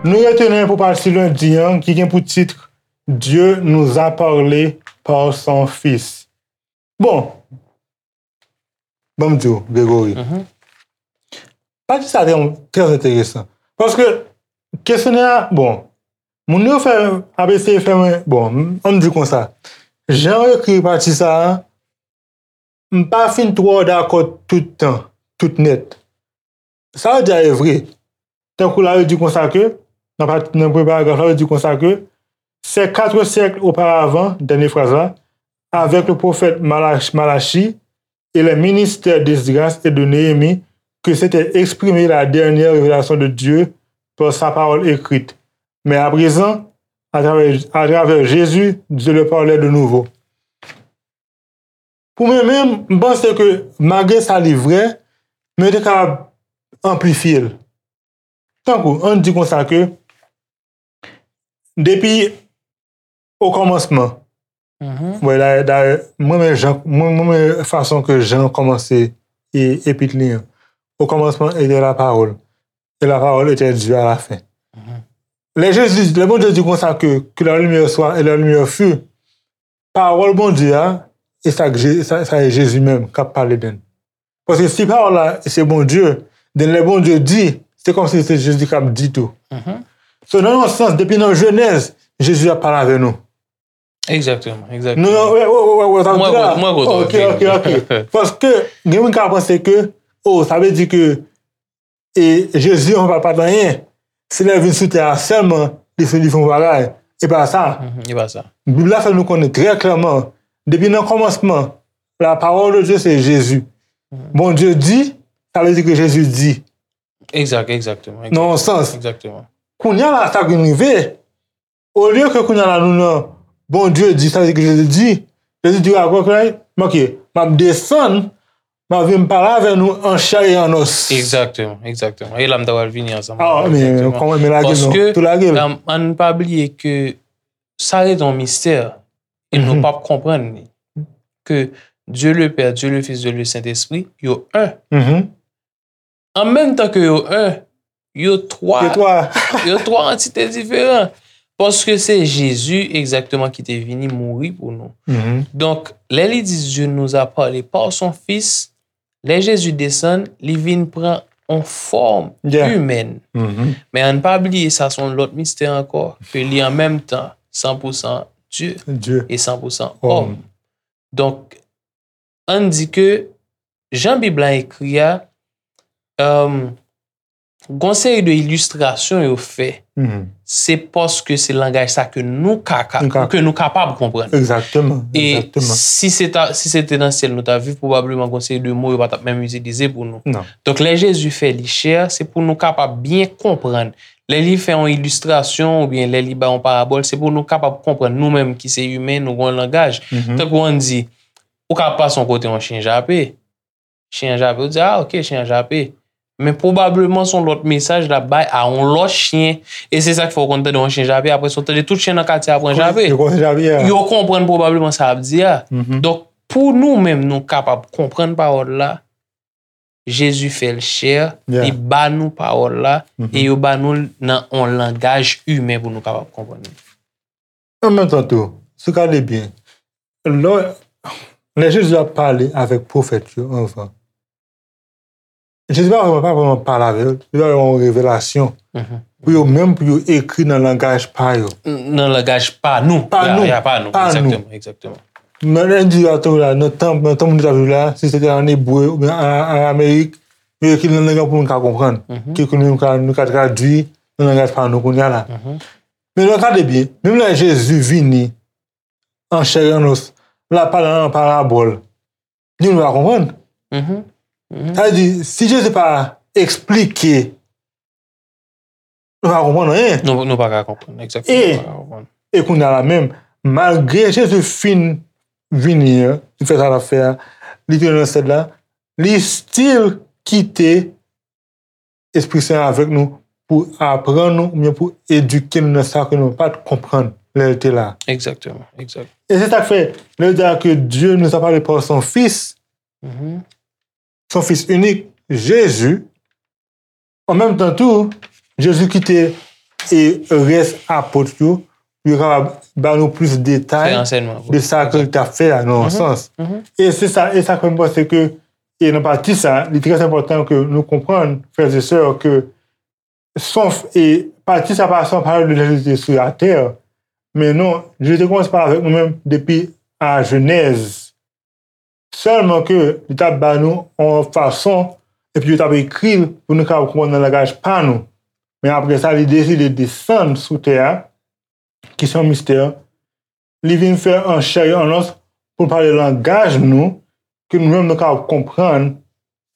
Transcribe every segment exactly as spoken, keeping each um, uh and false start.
Nou retounen pou pati lendi an ki gen pou tit Dieu nous a parlé par son Fils. Bon, ban m di w, Gregory. Pati sa te trè enteresan. Paske kesyonè a, bon, moun yo fè, ap eseye fè mwen, bon, m- ann di konsa. Jan yo ekri pati sa a, m pa fin twò dakò tout tan, tout nèt. Sa yo di a e vre. Tankou la yo di konsa ke, nan pati, nan premye paragraf la, yo di konsa ke, ces quatre siècles auparavant, dènye fraz la, avec le prophète Malach- Malachie et les ministères d'Esdras et de Néhémie, que s'était exprimée la dernière révélation de Dieu par sa parole écrite. Mais à présent, à travers, à travers Jésus, Dieu leur parlait de nouveau. Pou mwen menm, m panse ke malgre sa li vrè, men yo te kapab anplifye l. Tankou, ann di konsa ke depi okòmansman, wè, dayè, dayè, mwen renmen jan, mwen, mwen renmen fason ke Jan kòmanse e, epit li an. Au commencement était la parole, et la parole était Dieu à la fin. Lè Jezi, lè Bondye di konsa ke, que la lumière soit, et la lumière fut, pawòl Bondye a, e sa k Je- sa, sa e Jezi menm k ap pale de l. Paske si pawòl la se Bondye, then lè Bondye di, se kòmsi se Jezi k ap di tou. So, nan yon sans, depi nan Jenèz, Jezi ap pale avè nou. Egzakteman, egzakteman. Non, non, wè, wè, wè, wè, sa vle di la. Mwen kontan, mwen kontan. Ok, ok, ok. Paske, gen moun ka panse ke, oh, sa vle di ke e Jezi an pa, pa t anyen. Se lè l vin sou tè a sèlman li fè, li fè yon bagay. E pa sa. E pa sa. Bib la fè nou konnen trè klèman, depi nan kòmansman, la parole de Dieu se Jezi. Bondye di, sa vle di ke Jezi di. Egzak, egzakteman. Nan yon sans. Egzakteman. Kounye a la, sa k vin rive, olye ke kounye a la nou nan Bondye di, sa vle di ke Jezi di, Jezi di, ok, ok, m ap desann, m ap vin pale avè nou an chè e an os. Egzakteman, egzakteman. E la m ta pral vini ansanm. Ah, men kòman, men lage l non, tou lage l. Paske, ann pa bliye ke sa rete yon mistè e nou p ap konprann li. Ke Dieu le Père, Dieu le Fils, Dieu le Saint-Esprit, yo en. An menm tan ke yo en, yo twa. Yo twa. Yo twa antite diferan. Paske se Jezi egzakteman ki te vini mouri pou nou. Donk, lè li di Dieu nous a parlé par son Fils, lè Jezi desann, li vin pran yon fòm imèn. Men ann pa bliye, sa se yon lòt mistè ankò, ke li an menm tan san pou san Dye e san pou san òm. Donk, ann di ke jan Bib la ekri a, gon seri de ilistrasyon yo fè. Se paske se langaj sa ke nou ka, ka, ke nou kapab konprann. Egzakteman. E si se ta, si se te nan syèl nou ta viv, pwobableman gon seri de mo yo pa t ap menm itilize pou nou. Donk, lè Jezi fè li chè, se pou nou kapab byen konprann. Lè li fè yon ilistrasyon oubyen lè li bay yon parabòl, se pou nou kapab konprann. Nou menm ki se imen, nou gon langaj. Tankou ann di, ou ka pase yon kote yon chen jape. Chen an jape, ou di, ah, ok, chen an jape. Men pwobableman se yon lòt mesaj l ap bay a yon lòt chen. E se sa k fè w konn tande yon chen jape, apre sa w tande tout chen nan katye a pran jape. Yo konprann pwobableman sa l ap di a. Donk, pou nou menm, nou kapab konprann pawòl la, Jezi fè l chè, li ba nou pawòl la, e yo ba nou l nan yon langaj imen pou nou kapab konprann li. An menm tan tou, si w gade byen, lè, lè Jezi ap pale avèk pwofèt yo anvan, Jezi pa vrèman, pa vrèman pale avè yo, li pa vrèman yon revelasyon. Pou yo menm, pou yo ekri nan langaj pa yo. Nan langaj pa nou. Pa nou. Ya, pa nou. Egzakteman, egzakteman. Nan, nan di a tou la, nan tan, nan tan moun yo t ap viv la, si se te an ebre oubyen an, an aramaik, yo ekri nan lang pou moun ka konprann. Ke, ke nou ka, nou ka tradui nan langaj pa nou kounye a la. Men lè w gade byen, menm lè Jezi vini an chè e an os, l ap pale an parabòl, nou pa konprann. Sa vle di, si Jezi pa eksplike, nou pa konprann anyen. Nou, nou pa ka konprann, egzakteman, nou pa ka konprann. E kounye a la menm, malgre Jezi fin vini an, li fè sa l ap fè a, li tounen nan syèl la, li still kite Espri Sen an avèk nou pou aprann nou oubyen pou edike nou nan sa ke nou pa t konprann. lè l te la. Exactement, exact. E se sa k fè, lè yo di ke Dieu nous a parlé par son Fils, Mhm. son Fils unique, Jésus, an menm tan tou, Jezi kite e rès apot yo, pou yo kapab ba nou plis detay Fè ansèyman. de sa ke l t ap fè a, nan yon sans. Mhm. E se sa, e sa fè m panse ke, e nan pati sa, li trè enpòtan ke nou konprann, frè e sè, ke son, e pati sa pa son pale de lè li te sou latè, men non, Jezi te kòmanse pale avèk nou menm depi a Jenèz. Sèlman ke li t ap ba nou yon fason, epi yo t ap ekri l pou nou kapab konprann nan langaj pa nou. Men apre sa, li deside desann sou tè a, ki se yon mistè. Li vin fè an chè e an os pou l pale langaj nou, ke nou menm nou kapab konprann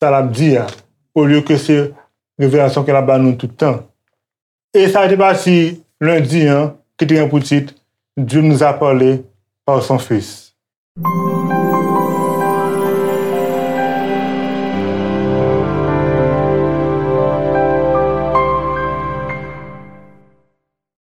sa l ap di a, olye ke se revelasyon ke l ap ba nou tout tan. E sa te pati lendi an, ki te gen pou tit Dieu nous a parlé par son Fils.